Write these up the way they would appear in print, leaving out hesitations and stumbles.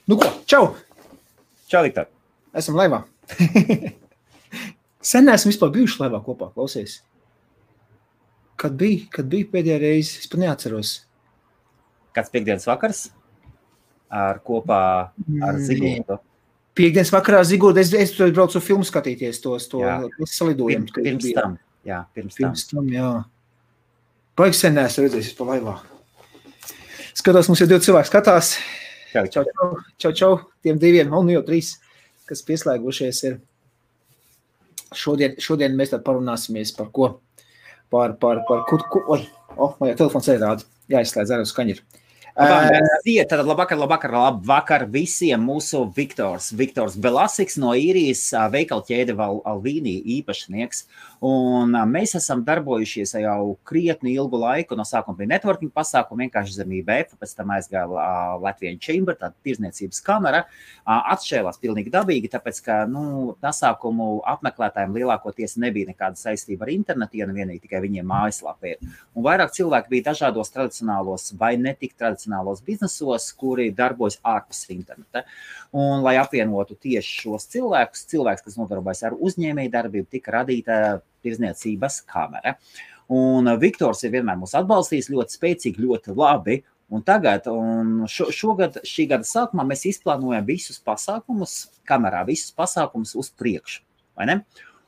Nu ko, čau! Čau, Viktor. Esam laivā. Sen neesam vispār bijuši laivā kopā, klausies. Kad bija pēdējā reize, es pat neatceros. Kāds piekdienas vakars kopā ar Ziguldu? Piekdienas vakarā Ziguldu, es tur braucu filmu skatīties to salidojumu. Pirms tam. Pirms tam, jā. Baigi sen neesmu redzējis pa laivā. Skatās, mums jau 2 cilvēki skatās. Čau, tiem 2, un jau 3, kas pieslēgušies ir. Šodien mēs tad parunāsimies par ko? Man jau telefons rāda. Jāizslēdz arī uz skaņiru. Tad labvakar visiem mūsu Viktors Belasiks no Īrijas veikala ķēde Alvīni īpašnieks. Un mēs esam darbojušies jau krietni ilgu laiku. No sākuma bija networking pasākumu, vienkārši zem IBF, pēc tam aizgāja Latvian Chamber, tāda tirzniecības kamera. Atšķēlās pilnīgi dabīgi, tāpēc, ka pasākumu apmeklētājiem lielākoties nebija nekāda saistība ar internetu, ja vienīgi tikai viņiem mājaslapē. Un vairāk cilvēki bija dažādos tradicionālos vai netik tradicionālos biznesos, kuri darbojas ārpus interneta. Un, lai apvienotu tieši šos cilvēkus, kas nodarbojas ar uzņēmēju darbību, tika radīta tirzniecības kamera. Un Viktors ir vienmēr mūs atbalstījis ļoti spēcīgi, ļoti labi. Un tagad, šogad, šī gada sākumā mēs izplānojam visus pasākumus uz priekšu, vai ne?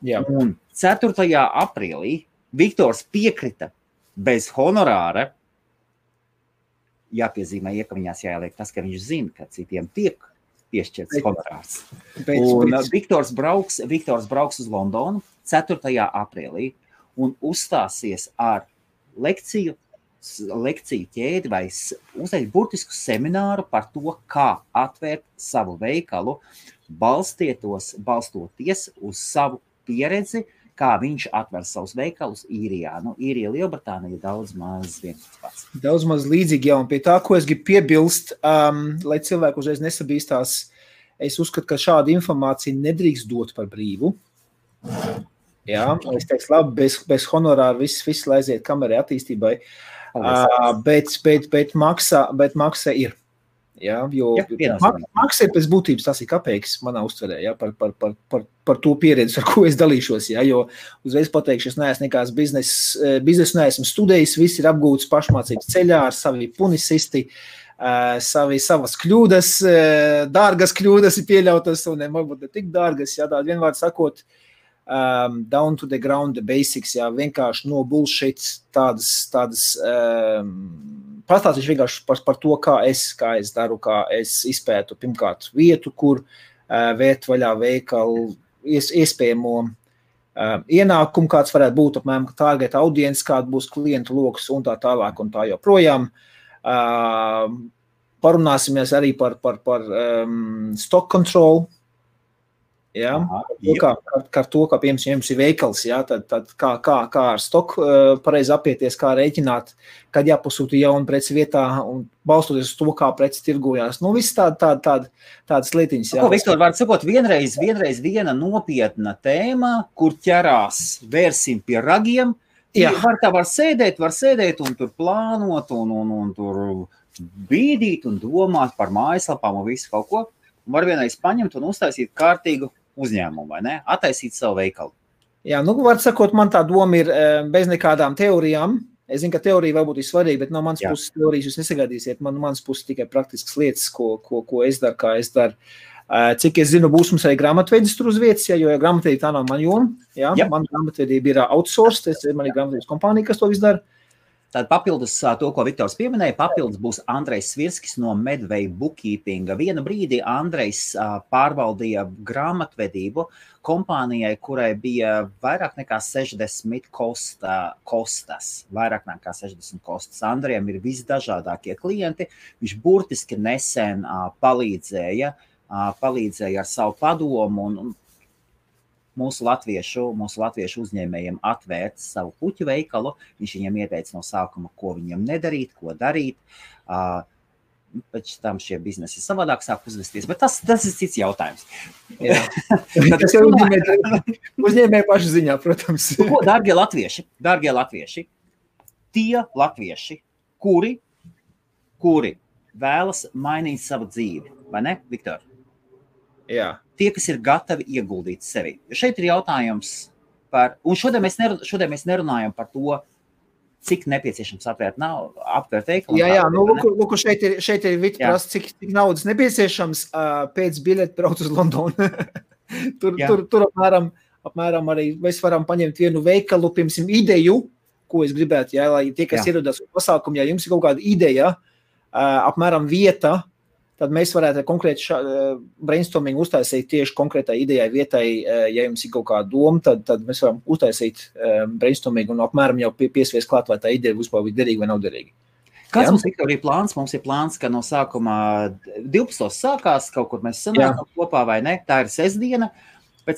Jā. Un 4. aprīlī Viktors piekrita bez honorāra. Jāpiezīmē, ka viņās jāieliek tas, ka viņš zina, ka citiem tiek piešķirts honorārs. Un Viktors brauks uz Londonu 4. aprīlī un uzstāsies ar lekciju ķēdi vai uzreiz burtisku semināru par to, kā atvērt savu veikalu, balstoties uz savu pieredzi, kā viņš atver savus veikalus Īrijā. Īrija, Lielbritānija daudz maz vienkārši pats. Daudz maz līdzīgi, jā, un pie tā, ko es gribu piebilst, lai cilvēku uzreiz nesabīstās, es uzskatu, ka šādu informāciju nedrīkst dot par brīvu. Jā, es teiktu, labi, bez honorāra viss lai aiziet kamerai attīstībai, bet maksa ir. Jā, jo maksa ir pēc būtības, tas ir kapeiks manā uztverē, jā, par to pieredzi, ar ko es dalīšos, jā, jo uzreiz pateikšu, es neesmu nekāds biznesu neesmu studējis, viss ir apgūts pašmācības ceļā ar savi punisisti, savas kļūdas, dārgas kļūdas ir pieļautas, un varbūt ne tik dārgas, jā, tādi vienvārdi sakot, down to the ground, the basics, jā, vienkārši no bullshit, tādas pastāstīšu vienkārši par to, kā es daru, kā es izpētu pirmkārt vietu, kur vērt vaļā veikalu, iespējamo ienākumu, kāds varētu būt, apmēram target audience, kāda būs klientu loks un tā tālāk un tā joprojām. Parunāsimies arī par stock control, jā, kā to, kā piemēram jums ir veikals, jā, tad kā ar stoku pareizi apieties, kā rēķināt, kad jāpasūta jauna preci vietā un balstoties uz to, kā preci tirgojās. Viss tādas lietiņas. Jā. Viktor, var sakot, vienreiz viena nopietna tēma, kur ķerās vērsim pie ragiem. Jā. Var sēdēt un tur plānot un tur bīdīt un domāt par mājaslapām un visu kaut ko. Var vienreiz paņemt un uztaisīt kārtīgu uzņēmumu, vai ne? Attaisīt savu veikalu. Jā, var sakot, man tā doma ir bez nekādām teorijām. Es zinu, ka teorija varbūt ir svarīga, bet no manas puses teorijas jūs nesagaidīsiet. Manas puses tikai praktiskas lietas, ko es daru, kā es daru. Cik es zinu, būs mums arī grāmatvedis tur uz vietas, jo grāmatvedība tā nav man joma. Man grāmatvedība ir outsourced, man ir grāmatvedības kompānija, kas to visu dara. Tad papildus to, ko Viktors pieminēja, papildus būs Andrejs Svirskis no Medway Bookkeepinga. Vienu brīdi Andrejs pārvaldīja grāmatvedību kompānijai, kurai bija vairāk nekā 60 kostas. Vairāk nekā 60 kostas. Andrejam ir visdažādākie klienti. Viņš burtiski nesen palīdzēja ar savu padomu un mūsu latviešu uzņēmējiem atvērt savu puķu veikalu. Viņš viņiem ieteica no sākuma, ko viņiem nedarīt, ko darīt. Pēc tam šie biznesi savādāk sāk uzvesties, bet tas ir cits jautājums. Tas jau uzņēmēju pašu ziņā, protams. Dārgie latvieši, tie latvieši, kuri vēlas mainīt savu dzīvi, vai ne, Viktor? Jā. Tie, kas ir gatavi ieguldīt sevi. Šeit ir jautājums par, un šodien mēs nerunājam par to, cik nepieciešams aptvērt veikalu. Jā, lūk, šeit ir Vita prasa, cik naudas nepieciešams pēc biļeti braukt uz Londonu. tur apmēram arī mēs varam paņemt vienu veikalu, piemēram, ideju, ko es gribētu, lai tie, kas ierodas uz pasākumu, ja jums ir kaut kāda ideja, apmēram vieta, tad mēs varētu konkrēti brainstorming uztaisīt tieši konkrētai idejai vietai, ja jums ir kaut kāda doma, tad mēs varam uztaisīt brainstorming un apmēram jau piesvies klāt, vai tā ideja būs derīga vai nav derīga. Kāds mums ir plāns? Mums ir plāns, ka no sākumā 12. sākās, kaut kur mēs sanākam kopā vai ne, tā ir sestdiena, pēc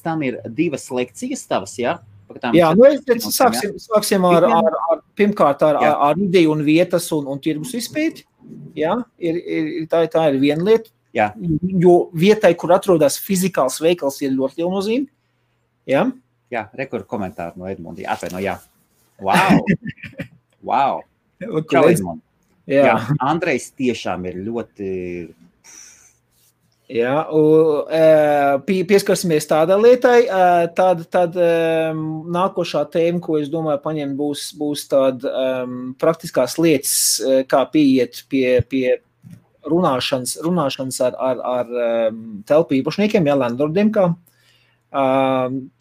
tam ir 2 lekcijas tavas, jā? Sāksim pirmkārt ar ideju un vietas un tirgus izpēti. Jā, tā ir viena lieta, jo vietai, kur atrodas fizikāls veikals, ir ļoti liela nozīme. Jā, rekur komentāru no Edmundi. Atvaino, jā. Wow. Čau, Edmundi. Jā, Andrejs tiešām ir ļoti... Jā, pieskarsimies tādai lietai, tad nākošā tēma, ko es domāju paņemt, būs tāda praktiskās lietas, kā pieiet pie runāšanas ar telpu īpašniekiem, landlordiem, kā.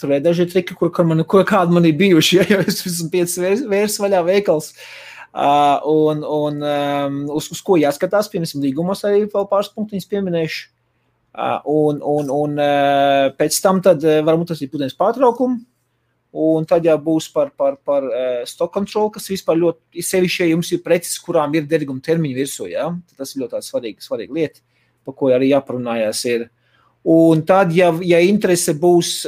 Tur ir daži triki, kādi man ir bijuši, ja es esmu 5 vērs vaļā veikals. Uz ko jāskatās, piemēram, līgumos arī vēl pāris punktiņas pieminēšu. Un pēc tam tad varbūt tas ir pudienas pārtraukumu, un tad jau būs par stock control, kas vispār ļoti sevišķi, ja jums ir preces, kurām ir derīguma termiņa virsū, tas ir ļoti svarīga lieta, par ko arī jāparunājās ir. Un tad, ja interese būs,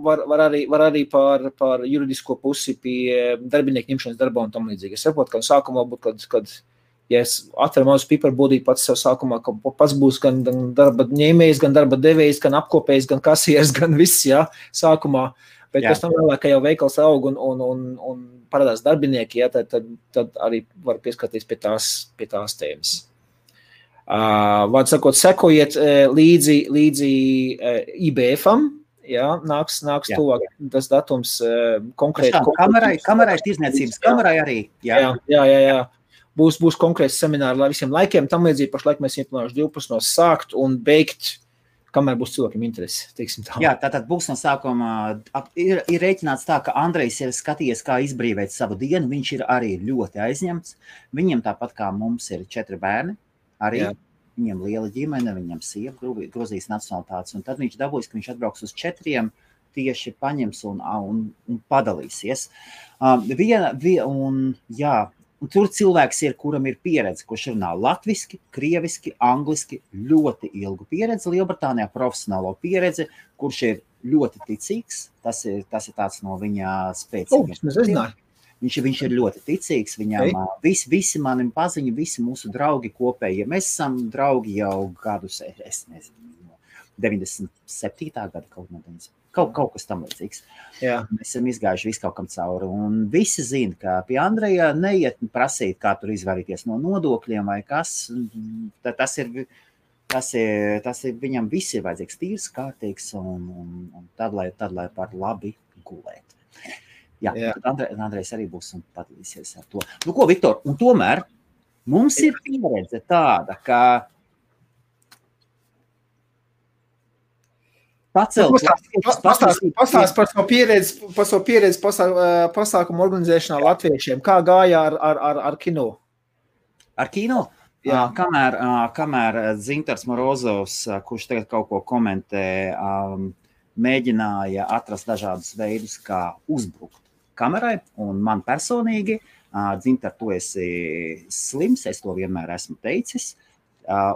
var arī par juridisko pusi pie darbinieku ņemšanas darbā un tam līdzīgi. Es saprotu, ka sākumā būtu, kad ja es atveru mazu piperbūdī pats sev sākumā, ka pats būs gan darba ņēmējs, gan darba devējs, gan apkopējs, gan kasieris, gan viss, sākumā. Bet pēc tam vēlāk, ka jau veikals aug un parādās darbinieki, tad arī var pieskarties pie tās tēmas. Vārds sakot, sekojiet līdzi IBF-am, nāks tuvāk tas datums konkrēti. Kamerai tirzniecības, kamerai arī. Jā. Būs konkrēts semināri lai visiem laikiem, tam līdzīgi pašlaik mēs ieplānojuši 12 sākt un beigt, kamēr būs cilvēkiem interesi, teiksim tā. Jā, tātad būs no sākuma, ir rēķināts tā, ka Andrejs ir skatījies, kā izbrīvēt savu dienu, viņš ir arī ļoti aizņemts, viņam tāpat kā mums ir 4 bērni, arī viņam liela ģimene, viņam sieva, Gruzijas nacionalitātes, un tad viņš dabūjis, ka viņš atbrauks uz 4, tieši paņems un padalīsies. Un tur cilvēks ir, kuram ir pieredze, kurš runā latviski, krieviski, angliski, ļoti ilgu pieredzi, Lielbritānijā profesionālo pieredzi, kurš ir ļoti ticīgs, tas ir tāds no viņa spēcīgiem. Viņš ir ļoti ticīgs, viņam visi mani paziņi, visi mūsu draugi kopēji, mēs esam draugi jau gadus, es nezinu, 97. gada kaut kas tam līdzīgs. Mēs esam izgājuši visu kaut kam cauri, un visi zina, ka pie Andreja neiet prasīt, kā tur izvairīties no nodokļiem vai kas, tas ir viņam viss ir vajadzīgs tīrs, kārtīgs, un tad, lai par labi gulēt. Tad Andrejs arī būs un padalīsies ar to. Nu ko, Viktor, un tomēr mums ir pieredze tāda, ka Pastāst par savu pieredzi pasākumu organizēšanā latviešiem. Kā gāja ar kino? Ar kino? Jā. Kamēr Dzintars Morozovs, kurš tagad kaut ko komentē, mēģināja atrast dažādus veidus, kā uzbrukt kamerai, un man personīgi, Dzintar, tu esi slims, es to vienmēr esmu teicis,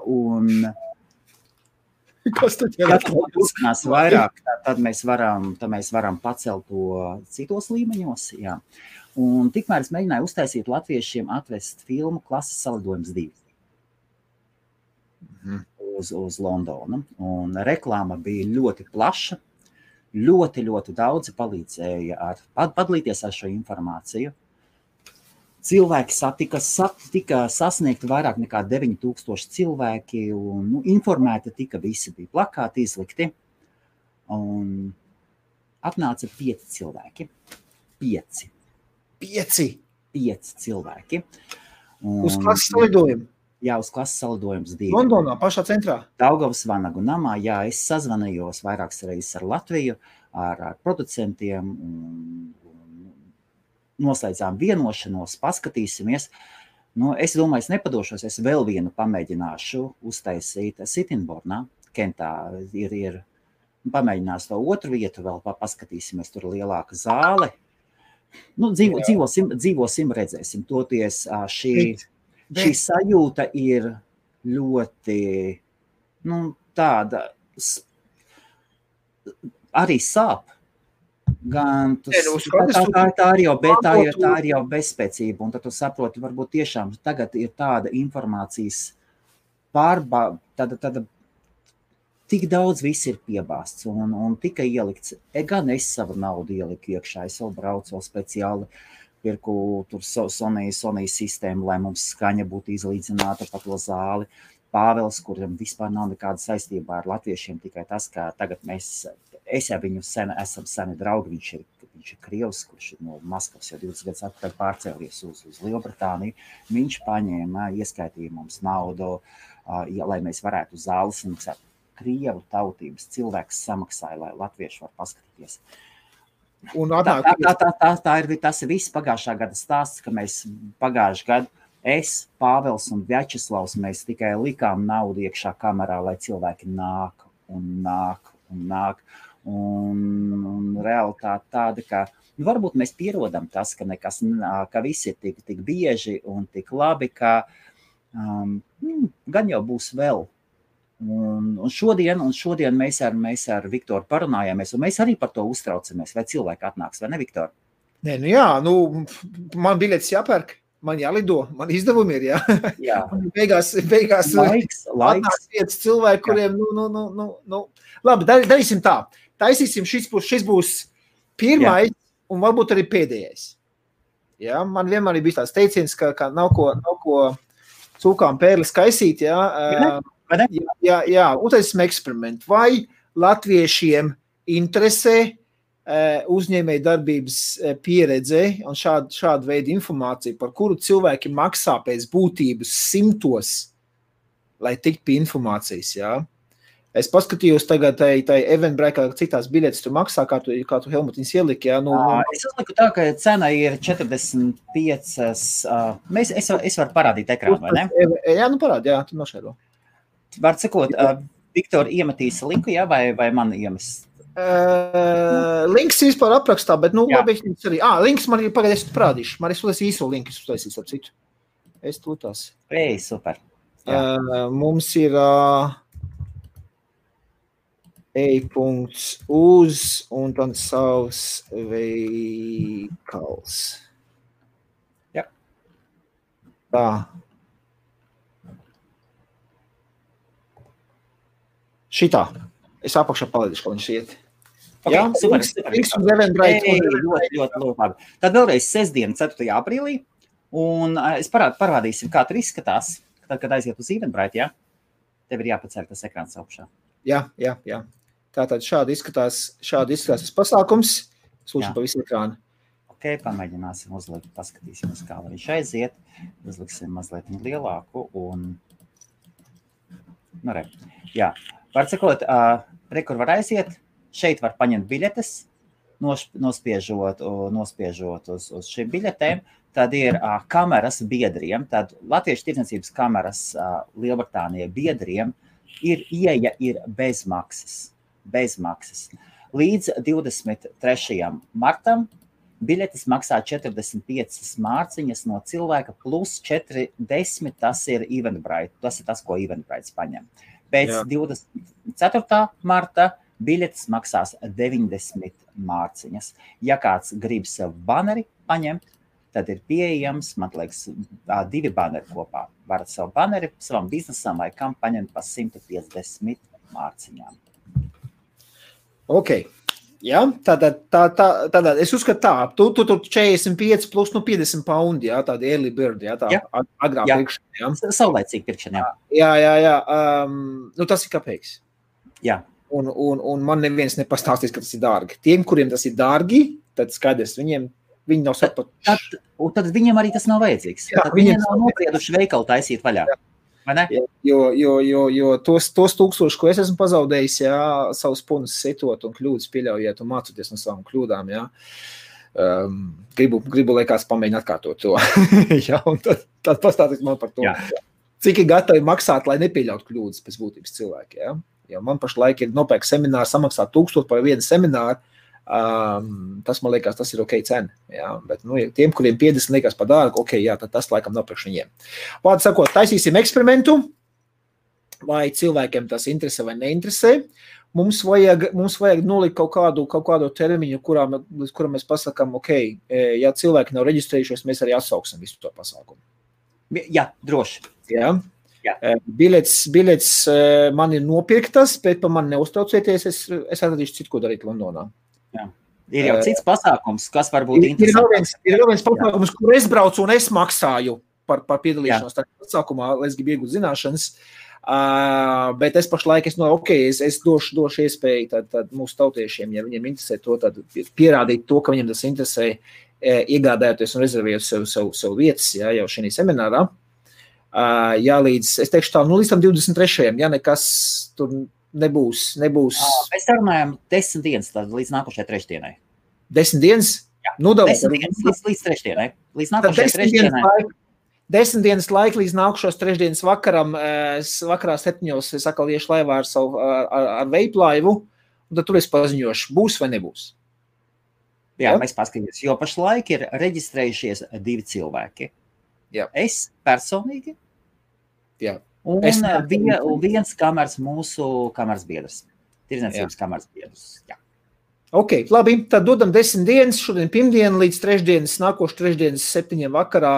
un kas tad vairāk, tad mēs varam pacelt to citos līmeņos. Jā. Un tikmēr es mēģināju uztaisīt latviešiem atvest filmu Klases salidojums 2 uz Londonu. Un reklāma bija ļoti plaša, ļoti daudzi palīdzēja padalīties ar šo informāciju. cilvēki tika sasniegti vairāk nekā 9000 cilvēki, un informēti tika visi, bija plakāti izlikti, un atnāca 5 cilvēki. 5 cilvēki. Uz klases salidojumu? Jā, uz klases salidojums 2. Londonā, pašā centrā? Daugavas Vanagu namā, jā, es sazvanījos vairākas reizes ar Latviju, ar producentiem, un noslēdzām vienošanos, paskatīsimies. Es domāju, es nepadošos, es vēl vienu pamēģināšu uztaisīt Sittingbournā, Kentā ir pamēģinās to otru vietu vēl, paskatīsimies, tur lielāka zāle. Dzīvosim, redzēsim. Toties šī sajūta ir ļoti, tāda, arī sāp. Gan tā ir jau bezspēcība, un tad tu saproti, varbūt tiešām tagad ir tāda informācijas tāda tik daudz viss ir piebāsts un tika ielikts, gan es savu naudu ieliku iekšā, es vēl braucu vēl speciāli, pirku tur Sony sistēmu, lai mums skaņa būtu izlīdzināta pa to zāli. Pāvels, kuram vispār nav nekāda saistībā ar latviešiem, tikai tas, ka tagad es jau viņu esam seni draugi, viņš ir krievs, kurš no Maskavas jau 20 gadus atpakaļ pārcēlies uz Lielbritāniju. Viņš paņēma, ieskaitīja mums naudu, lai mēs varētu uz zāles samaksāt. Krievu tautības cilvēks samaksāja, lai latvieši var paskatīties. Tas ir viss pagājušā gada stāsts, ka mēs pagājušā gadu es, Pāvels un Vjačeslavs, mēs tikai likām naudu iekšā kamerā, lai cilvēki nāk. Un realitāte tāda, ka varbūt mēs pierodam tas, ka viss ir tik bieži un tik labi, ka gan jau būs vēl. Un šodien mēs ar Viktoru parunājāmies, un mēs arī par to uztraucamies, vai cilvēki atnāks, vai ne, Viktor? Nē, man biļetes jāpērk. Man jālido, man izdevumi ir, jā. Beigās laiks. Atnāks 5 cilvēki, kuriem, Labi, darīsim tā. Taisīsim, šis būs pirmais un varbūt arī pēdējais. Jā, man vienmēr ir bijis tāds teiciens, ka nav ko cūkām pērlis kaisīt, Jā, uztaisim eksperimentu. Vai latviešiem interesē uzņēmēju darbības pieredze un šāda veida informācija, par kuru cilvēki maksā pēc būtības 100, lai tikt pie informācijas, jā. Es paskatījos tagad tai Eventbrite, cik tās biļetes tu maksā, kā tu Helmutiņas ieliki, jā. Es uzliku tā, ka cena ir 45, es varu parādīt ekrānu, vai ne? Jā, parādi, jā, tu nošēro. Var sakot, Viktor iemetīs linku, jā, vai man iemest? Links vispār aprakstā, bet, labi, arī. Links man ir pagaidēs parādīšu. Man es īso linku uztaisīs ar citu. Es tūtās. Super. Mums ir e-punkts uz un tad savs veikals. Jā. Tā. Šitā. Es apakšā palīdīšu, ko viņš iet. Jā, super. Ļoti labi. Tad vēlreiz sestdien, 4. aprīlī, un es parādīsim, kā tur izskatās, tad, kad aiziet uz Eventbrite, jā? Tev ir jāpaceļ tas ekrāns augšā. Jā. Tātad šādi izskatās tas pasākums. Lūdzu pa visu ekrānu. Ok, pamēģināsim uzlikt, paskatīsimies, kā viņš aiziet. Uzliksim mazliet lielāku un... Jā. Var sakot, kur var aiziet, šeit var paņemt biļetes, nospiežot uz šīm biļetēm, tad ir kameras biedriem, tad Latviešu tirdzniecības kameras Lielbritānijai biedriem ieeja ir bez maksas. Līdz 23. martam biļetes maksā 45 mārciņas no cilvēka plus 40, tas ir Eventbrite, tas ir tas, ko Eventbrite paņem. Pēc 24. marta biļetes maksās 90 mārciņas. Ja kāds grib sev baneri paņemt, tad ir pieejams, man liekas, 2 baneri kopā. Varat savu baneri savam biznesam vai kam paņemt pa 150 mārciņām. Ok. Ja, tātad es uzskatu tā, tu 45 plus 50 paundi, jā, tāda early bird, jā, tā agrā pirkšana, jā. Saulēcīga pirkšana, jā. Jā. Tas ir kāpēc? Jā. Un man neviens nepastāstīs, ka tas ir dārgi. Tiem, kuriem tas ir dārgi, tad skaidrs, viņi nav sapratuši. Tad viņiem arī tas nav vajadzīgs. Jā, tad viņi nav noprieduši veikalu taisīt vaļā. Jā. Jo tos 1000, ko es esmu pazaudējis, jā, savus punus setot un kļūdas pieļaujiet un mācoties no savām kļūdām, jā. Gribu lai kāds pamēģina atkārtot to. Jā, un tad pastāstīt man par to. Jā. Cik ir gatavi maksāt, lai nepieļautu kļūdas pēc būtības cilvēki, jā. Jo man pašlaik ir nopērk semināru, samaksāt 1000 par vienu semināru. Tas man liekas, tas ir ok cena. Jā, bet tiem, kuriem 50 liekas par dārgu, ok, jā, tad tas laikam nav priekš viņiem. Vārdu sakot, taisīsim eksperimentu, vai cilvēkiem tas interesē vai neinteresē. Mums vajag nolikt kaut kādu termiņu, līdz kuram mēs pasakām, ok, ja cilvēki nav reģistrējušies, mēs arī atsauksim visu to pasākumu. Jā, droši. Jā. Biļets man ir nopirktas, bet par mani neuztraucieties, es atradīšu citu, ko darīt Londonā. Jā. Ir jau cits pasākums, kas var būt interesants. Ir vēl viens pasākums, kur es braucu un es maksāju par piedalīšanos tajā pasākumā, lai es gribu iegūt zināšanas, bet es pašlaik es došu iespēju tad mūsu tautiešiem, ja viņiem interesē to, tad pierādīt to, ka viņiem tas interesē, iegādājoties un rezervējot sev vietas, jā, jau šī seminārā. Jā, es teikšu tā, līdz tam 23. Ja nekas tur nebūs. Mēs runājam 10 dienas līdz nākošajai trešdienai. 10 dienas? Jā, 10 dienas līdz trešdienai. Līdz nākošajai trešdienai. 10 dienas laika līdz nākušos trešdienas vakarā 7. es atkal iešu laivā ar veiplaivu, un tad tur es paziņošu, būs vai nebūs. Jā, mēs paskatīsimies, jo pašlaik ir reģistrējušies 2 cilvēki. Jā. Es personīgi. Jā. Un viens mūsu kameras biedrs. Tirdzniecības kameras biedrs. Jā. Ok, labi, tad dodam 10 dienas, šodien pirmdienu līdz trešdienas, nākošu trešdienas 7 vakarā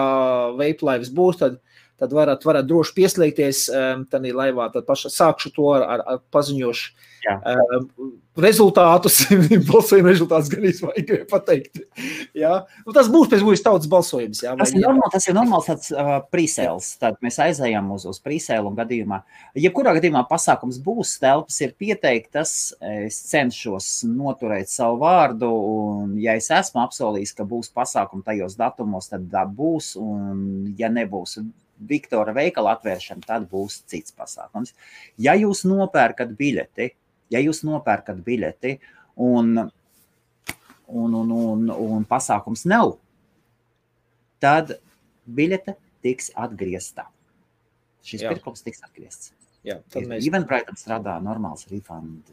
veiplaivas būs, tad varat droši pieslēgties tādā laivā, tad paša sākšu to ar paziņošu rezultātus, balsojuma rezultātus gan vajag pateikt. Jā. Un tas būs pēc būs tautas balsojums. Jā, tas ir normāls tāds pre-sales, tad mēs aizējam uz pre-sale un gadījumā. Jebkurā gadījumā pasākums būs, telpas ir pieteiktas, es cenšos noturēt savu vārdu, un ja es esmu apsolījis, ka būs pasākumi tajos datumos, tad būs, un ja nebūs Viktora veikala atvēršana, tad būs cits pasākums. Ja jūs nopērkat biļeti un pasākums nav, tad biļete tiks atgriezta. Šis pirkums tiks atgriezts. Jā, Eventbrite strādā normāls refund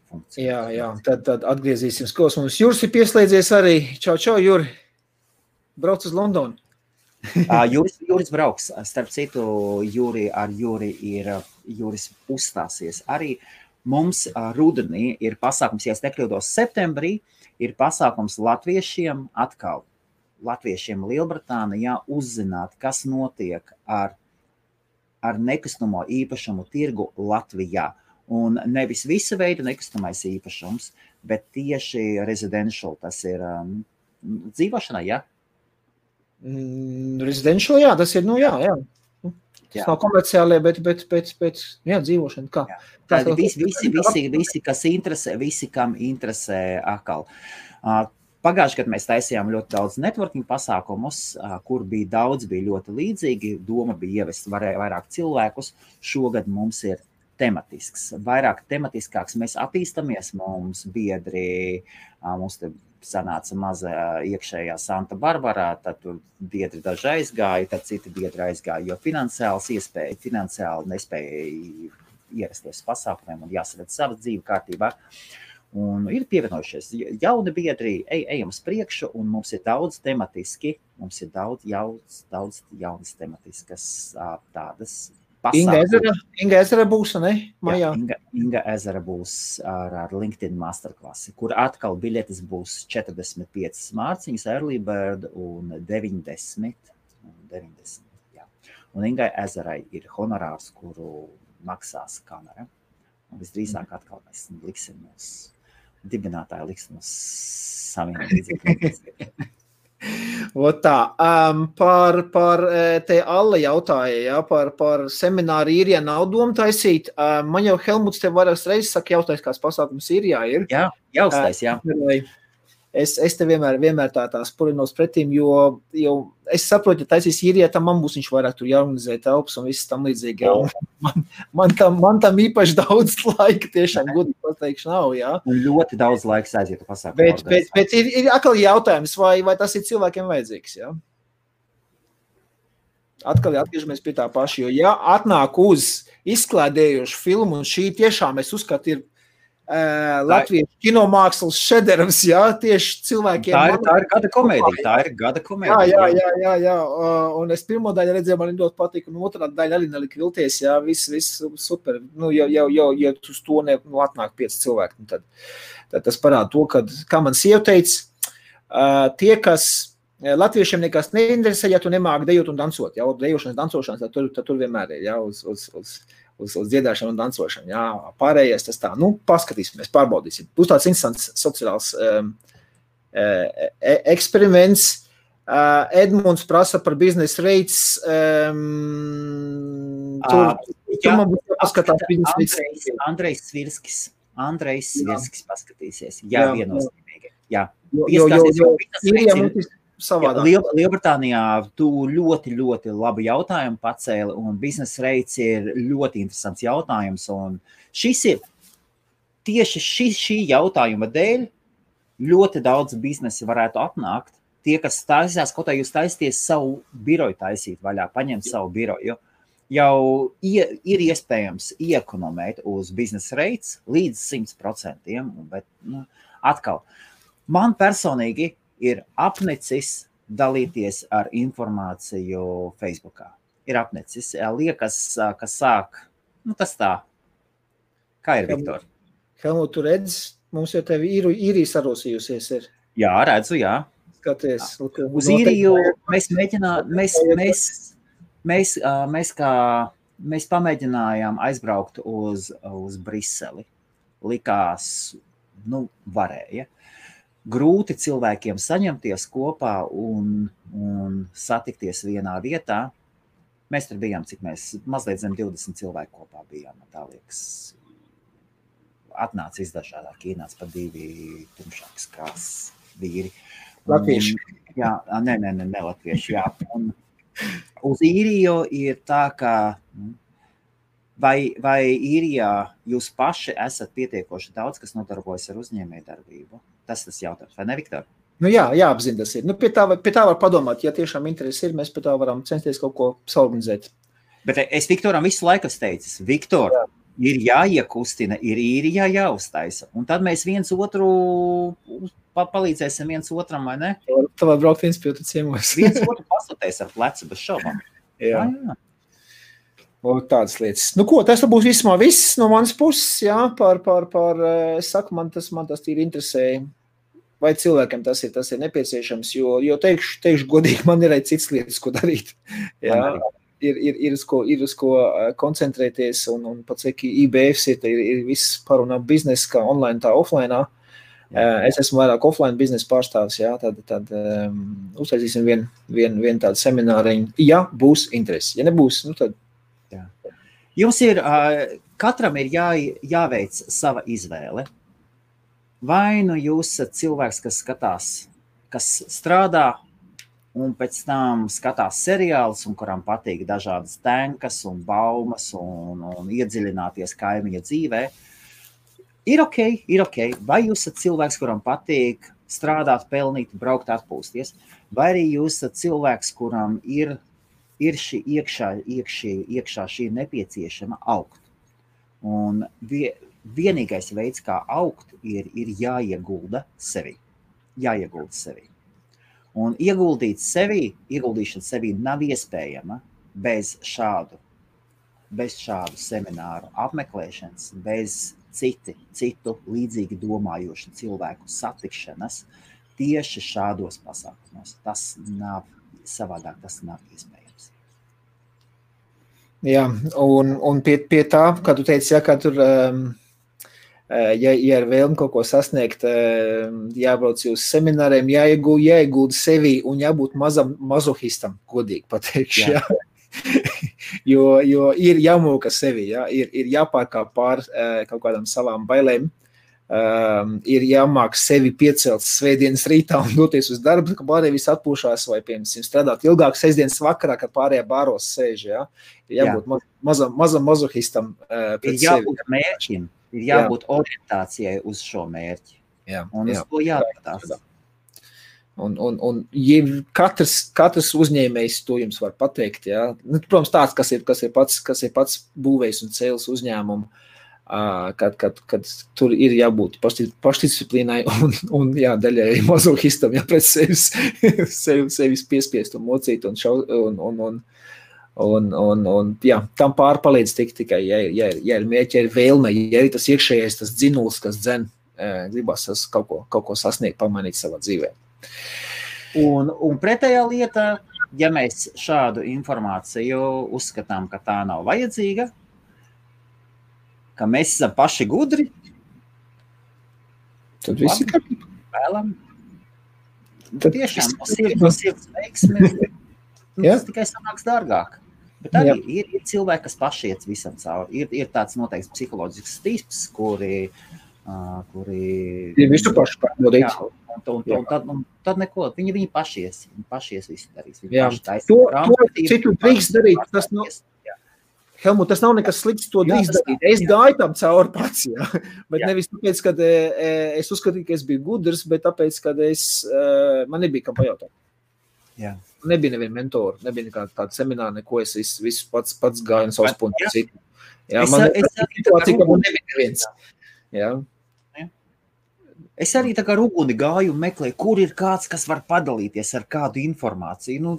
funkcija. Jā, tad atgriezīsim skos. Mums Juris ir pieslēdzies arī. Čau, Juri. Brauc uz Londonu. Juris brauks, starp citu, Juris uzstāsies. Arī mums rudenī ir pasākums, ja es nekļūdos septembrī, ir pasākums latviešiem Lielbritānijā uzzināt, kas notiek ar nekustamo īpašumu tirgu Latvijā. Un nevis visa veida nekustamais īpašums, bet tieši residential, tas ir dzīvošanai, ja? Residential, jā, tas ir, jā. Tas nav komerciālie, bet dzīvošana. Kā? Tādi visi, kas interesē, visi, kam interesē atkal. Pagājuši, kad mēs taisījām ļoti daudz networking pasākumus, kur bija ļoti līdzīgi, doma bija ievest vairāk cilvēkus. Šogad mums ir tematisks, vairāk tematiskāks. Mēs attīstamies, mums biedri, mums te sanāca maza iekšējā Santa Barbarā, tad tur biedri daži aizgāja, tad citi biedri aizgāja, jo finansiāli nespēja ierasties pasākumiem un jāsaved savas dzīve kārtībā. Un ir pievienojušies jauni biedri, ejam uz priekšu, un mums ir daudz tematiski, mums ir daudz jaunas tematiskas tādas pasākumus. Inga Ezera būs, ne? Majā. Inga Ezera būs ar LinkedIn masterklasi, kur atkal biļetes būs 45 mārciņas, early bird un 90. Jā. Un Ingai Ezerai ir honorārs, kuru maksās kamera. Un visdrīzāk atkal mēs liksim dibinātāji liks mums saviem līdzekļiem. Tā, par te Alla jautāja, ja, par semināru Īrijā nav doma taisīt. Man jau Helmuts te vairākas reizes saka, jautājs, kāds pasākums Īrijā ir. Jā, jaustais, jā. Es te vienmēr tā spurinos pretīm, jo es saprotu, ja taisīs Īrijā, tam man būs viņš vairāk tur jāorganizē telpas un viss tam līdzīgi. Man tam īpaši daudz laika tiešām gudīgi pateikšu nav, jā. Un ļoti daudz laiks aiziet pasākumu. Bet ir atkal jautājums, vai tas ir cilvēkiem vajadzīgs, jā? Atkal atgriežamies pie tā paša, jo ja atnāk uz izklādējušu filmu, un šī tiešām es uzskatu ir Latvijas kinomākslas šederavs, jā, tieši cilvēkiem. Tā ir gada komēdija, Jā. Un es pirmo daļu redzēju, man ļoti patīk, un otrā daļa arī nelika vilties, jā, viss super. Nu, jau uz to atnāk 5 cilvēki, tad tas parāda to, kā man sieva teica, tie, kas latviešiem nekas neinteresē, ja tu nemāki dejot un dansot, jā, dejošanas, dansošanas, tad tur vienmēr ir, jā, uz dziedāšanu un dansošanu, jā, pārējais tas tā, paskatīsimies, pārbaudīsim. Būs tāds interesants sociāls eksperiments. Edmunds prasa par biznesa rates. Tur man būs jāpaskatās biznesa rates. Andrejs Svirskis paskatīsies. Jā, viennozīmīgi. Jā. Lielbritānijā tu ļoti labu jautājumu pacēli, un biznesa rates ir ļoti interesants jautājums, un šis ir tieši šī jautājuma dēļ ļoti daudz biznesi varētu atnākt. Tie, kas taisās, kaut kā jūs taisties savu biroju taisīt vaļā, paņemt savu biroju, jau ir iespējams iekonomēt uz biznesa rates līdz 100%, bet atkal, man personīgi ir apnicis dalīties ar informāciju Facebookā. Ir apnicis. Liekas, ka sāk, tas tā. Kā ir, Viktor? Helmut, tu redz, mums jau tevi Īrija sarosījusies ir. Jā, redzu, jā. Skaties. Uz Īriju mēs pamēģinājām aizbraukt uz Briseli. Likās, varēja. Grūti cilvēkiem saņemties kopā un satikties vienā vietā. Mēs tur bijām, cik mēs mazliet zem 20 cilvēku kopā bijām. Tā liekas, atnāca izdažādāk, ienāca pa 2 tumšākas krāsas vīri. Latvieši. Jā, ne latvieši, jā. Un uz Īriju ir tā, ka vai Īrijā jūs paši esat pietiekoši daudz, kas nodarbojas ar uzņēmējdarbību? Tas jautājums, vai ne, Viktor? Jā, jāapzina tas ir. Pie tā var padomāt, ja tiešām interesi ir, mēs pie tā varam censties kaut ko saorganizēt. Bet es Viktoram visu laiku teicu, Viktor, ir jāiekustina, ir Īrijā jāuztaisa. Un tad mēs viens otru palīdzēsim viens otram, vai ne? Tā var braukt viens pie otru ciemos. Viens otru pasūtēs ar plecu bez šaubām. Jā. Tādas lietas. Tas būs vismaz viss no manas puses, jā, es saku, man tas tīri interesēja. Vai cilvēkiem tas ir nepieciešams, jo teikšu godīgi, man ir arī cits lietas, ko darīt. Jā, ir uz ko koncentrēties, un pats, ka IBFs ir viss parunā biznesa, kā online, tā offline. Es esmu vairāk offline biznesa pārstāvis, jā, tad uztaisīsim vienu tādu semināriņu, ja būs interesi. Ja nebūs, tad... Jā. Jums ir, katram ir jāveic sava izvēle. Vai jūs esat cilvēks, kas skatās, kas strādā un pēc tam skatās seriālus, un kuram patīk dažādas tenkas un baumas un iedziļināties kaimiņa dzīvē? Ir ok. Vai jūs esat cilvēks, kuram patīk strādāt, pelnīt, braukt, atpūsties? Vai arī jūs esat cilvēks, kuram ir šī iekšā šī nepieciešama augt? Un vienīgais veids, kā augt, ir jāiegulda sevi. Un ieguldīšana sevi nav iespējama bez šādu semināru apmeklēšanas, bez citu līdzīgi domājošu cilvēku satikšanas tieši šādos pasākumos. Tas nav savādāk, tas nav iespējams. Jā, un pie tā, kā tu teici, ja, ka tur ja ir vēlme kaut ko sasniegt, jābrauc uz semināriem, jāiegulda sevi un jābūt mazam mazohistam, godīgi pateikšu. Jā. Jo ir jāmūka sevi, ir jāpārkāp pār kaut kādām savām bailēm, ir jāmāk sevi piecelt svētdienas rītā un doties uz darbu, ka pārējie visi atpūšās vai, piemēram, strādāt ilgāk sestdienas vakarā, kad pārējie bāros sēž, ir jābūt mazam mazohistam pret sevi. Ir jābūt mērķim. Ir jābūt orientācijai uz šo mērķi. Un uz to jāpatās. Un katrs uzņēmējs to jums var pateikt. Protams, tāds, kas ir pats būvējs un cēlis uzņēmumu, kad tur ir jābūt pašdisciplīnai un daļai mazohistam, pret sevis piespiest un mocīt un tam pārpalīdz tikai, ja ir mērķi, ja ir vēlme, ja ir tas iekšējais, tas dzinuls, kas dzen, gribas kaut ko sasniegt, pamainīt savā dzīvē. Un pretējā lieta, ja mēs šādu informāciju uzskatām, ka tā nav vajadzīga, ka mēs esam paši gudri, tad visi kārtībā. Vēlam. Tiešām no sirds veiksmi, tas tikai sanāks dārgāk. Bet arī ir cilvēki, kas paši iet visam cauri. Ir tāds noteikts psiholoģisks tips, kuri ir visu pašu pārbaudīt. Un tad neko, viņi paši ies visu darīs. Citu drīkst darīt, tas nav, Helmut, tas nav nekas slikts, to drīkst darīt. Es gāju tam cauri pats, bet nevis tāpēc, kad es uzskatīju, ka es biju gudrs, bet tāpēc, kad man nebija kam pajautāt. Nebija neviena mentora, nebija nekāda tāda semināra, neko es visu pats gāju un savus punktus citu. Man situācija, ka man nebija neviens. Es arī tā kā ruguni gāju un meklēju, kur ir kāds, kas var padalīties ar kādu informāciju.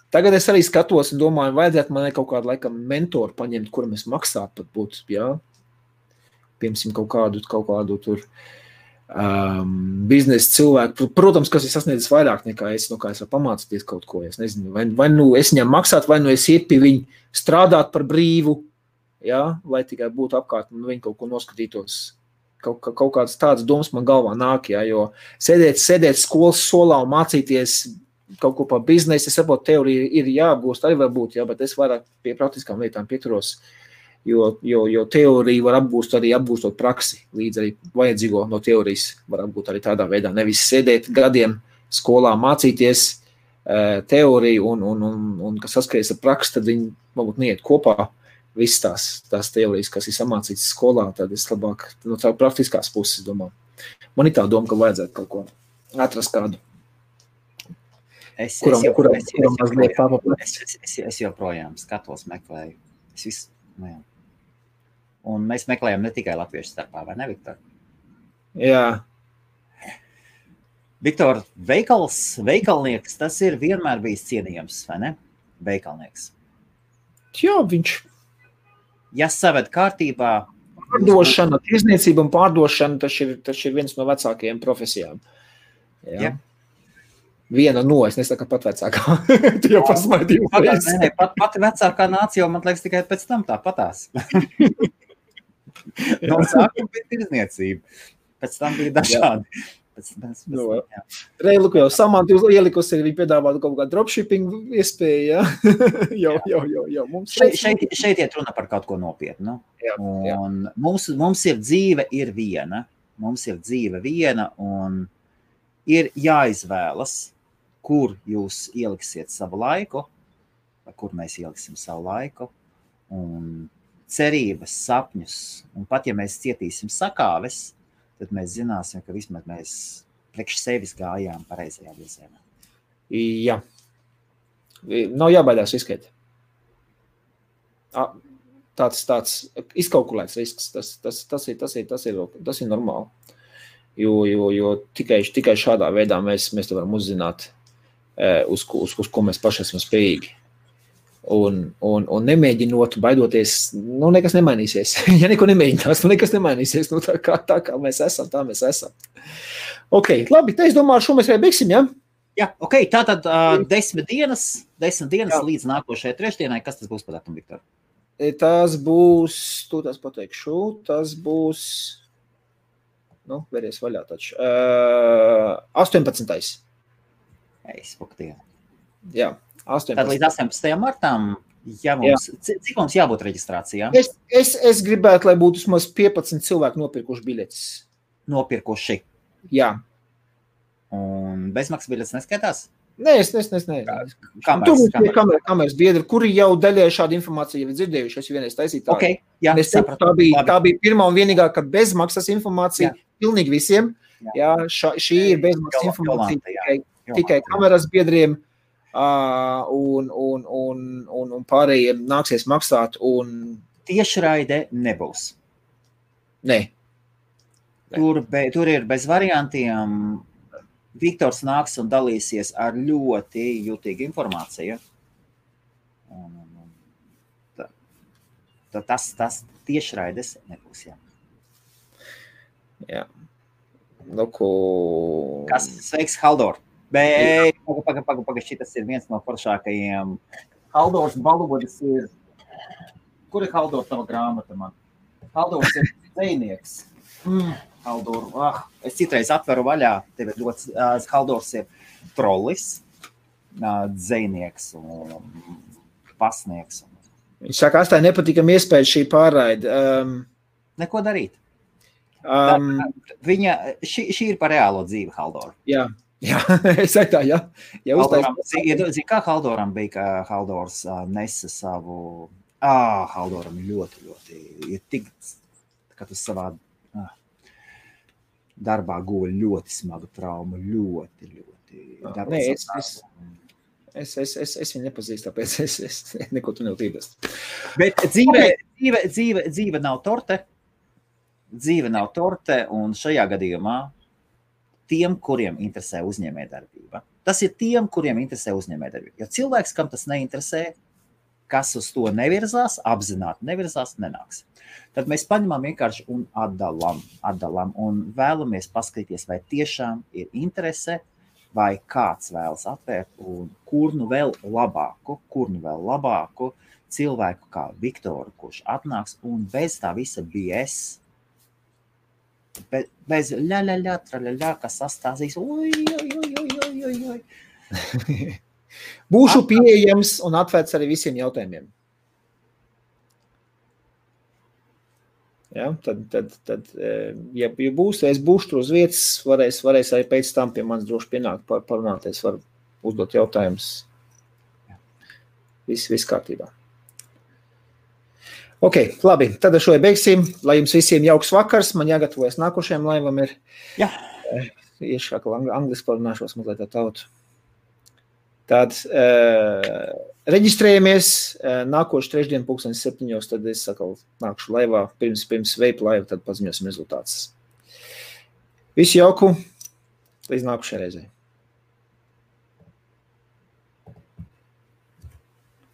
Tagad es arī skatos un domāju, vajadzētu man kaut kādu laikam mentoru paņemt, kuram es maksātu pat būt, piemēram, kaut kādu tur biznesa cilvēku, protams, kas ir sasniedzis vairāk nekā es, kā es varu pamācīties kaut ko, es nezinu, vai nu es viņam maksātu, vai nu es iet pie viņu strādāt par brīvu, lai tikai būtu apkārt un viņi kaut ko noskatītos. Kaut kādas tādas domas man galvā nāk, jo sēdēt skolas solā un mācīties kaut ko par biznesu, es saprotu, teorija ir jāapgūst, arī var būt, bet es vairāk pie praktiskām lietām pieturos. Jo teoriju var apgūst arī apgūstot praksi, līdz arī vajadzīgo no teorijas var apgūt arī tādā veidā. Nevis sēdēt gadiem skolā mācīties teoriju un kas saskaries ar praksi, tad viņi varbūt neiet kopā visas tās teorijas, kas ir samācītas skolā, tad es labāk no tā praktiskās puses domāju. Man ir tā doma, ka vajadzētu kaut ko atrast kādu. Es joprojām skatos, meklēju. Un mēs meklējam ne tikai latviešu starpā, vai ne, Viktor? Jā. Viktor, veikalnieks, tas ir vienmēr bijis cienījams, vai ne? Veikalnieks. Jā, viņš. Ja saved kārtībā. Pārdošana, tirzniecība un pārdošana, tas ir viens no vecākajiem profesijām. Jā. Viena no, es nesaku pat vecākā. Tu jau pasmaidīju. Pati vecākā nācija jau, man liekas, tikai pēc tam tā patās. No sākuma bija tirzniecība. Pēc tam bija dažādi. Reiluku jau Samanta ielikusi, viņi piedāvātu kaut kādu dropshipping iespēju, jau. Šeit iet runa par kaut ko nopietnu. Un mums ir dzīve viena. Mums ir dzīve viena un ir jāizvēlas, kur jūs ieliksiet savu laiku, vai kur mēs ieliksim savu laiku, un cerības, sapņus, un pat ja mēs cietīsim sakāves, tad mēs zināsim, ka vismaz mēs priekš sevis gājām pareizajā virzienā. Jā. Nav jābaidās riskēt. Tāds izkalkulēts risks, tas ir normāli. Jo tikai šādā veidā mēs to varam uzzināt, uz ko mēs paši esam spējīgi. Un nemēģinot, baidoties, nekas nemainīsies. Ja neko nemēģinās, nekas nemainīsies. Tā kā mēs esam, tā mēs esam. Ok, labi, es domāju, šo mēs arī beigsim, ja? Jā, ok, tātad 10 dienas līdz nākošajai trešdienai. Kas tas būs par datumu, Viktor? Tas būs, tu tās pateikšu, tas būs, vēries vaļā taču, 18. Jā, 18. Tad līdz 18. martām, cik mums jābūt reģistrācijā? Es gribētu, lai būtu vismaz 15 cilvēki nopirkuši biļetes. Nopirkuši? Jā. Un bezmaksas biļetes neskaitās? Nē, es Tur būs kameras biedri, kuri jau daļai šādu informāciju jau dzirdējuši, es vienreiz taisīju tādu. Okay, jā, tā bija pirmā un vienīgā, ka bezmaksas informācija pilnīgi visiem. Jā, šī ir bezmaksas informācija tikai kameras biedriem un pārējiem nāksies maksāt. Tiešraide nebūs. Nē. Tur ir bez variantiem. Viktors nāks un dalīsies ar ļoti jūtīgu informāciju. Tas tiešraides nebūs, jā. Jā. Kas? Sveiks, Haldor. Paga, šitas ir viens no foršākajiem. Haldors Balodis ir... Kur ir Haldor tava grāmata man? Haldors ir dzejnieks. Haldor, es citreiz atveru vaļā, tev ir ļoti, Haldors ir trollis, dzejnieks un pasnieks. Viņš saka, astāji nepatīkam iespēja šī pārraide. Neko darīt. Šī ir par reālo dzīvi, Haldor. Jā, es saku tā, jā. Zini, kā Haldoram bija, ka Haldors nesa savu... Haldoram ļoti ir tik, ka tu savā... darbā guva ļoti smagu traumu, ļoti. Nē, es viņu nepazīstu, tāpēc es neko tu neutības. Bet dzīve nav torte. Dzīve nav torte, un šajā gadījumā tiem, kuriem interesē uzņēmējdarbība. Tas ir tiem, kuriem interesē uzņēmējdarbība. Jo cilvēks, kam tas neinteresē, kas uz to nevirzās, apzināti nevirzās, nenāks. Tad mēs paņemam vienkārši un atdalam un vēlamies paskatīties, vai tiešām ir interese, vai kāds vēlas atvērt un kur nu vēl labāku cilvēku kā Viktoru, kurš atnāks un bez tā visa BS, bez traļaļā, kas sastāstīs, oj. Būšu pieejams un atvērts arī visiem jautājumiem. Ja, tad ja būs, es būšu tur uz vietas, varēs arī pēc tam pie manis droši pienākt parunāties, var uzdot jautājumus. Viss kārtībā. Ok, labi, tad ar šo beigsim. Lai jums visiem jauks vakars, man jāgatavojas nākošajam laivam ir. Jā. Iešāk angliski parunāšos mazliet tā tautu. Tad reģistrējamies nākošu trešdienu 7:00, tad es nākšu laivā, pirms veipa laiva, tad paziņosim rezultātus. Visu jauku, līdz nākušajai reizei.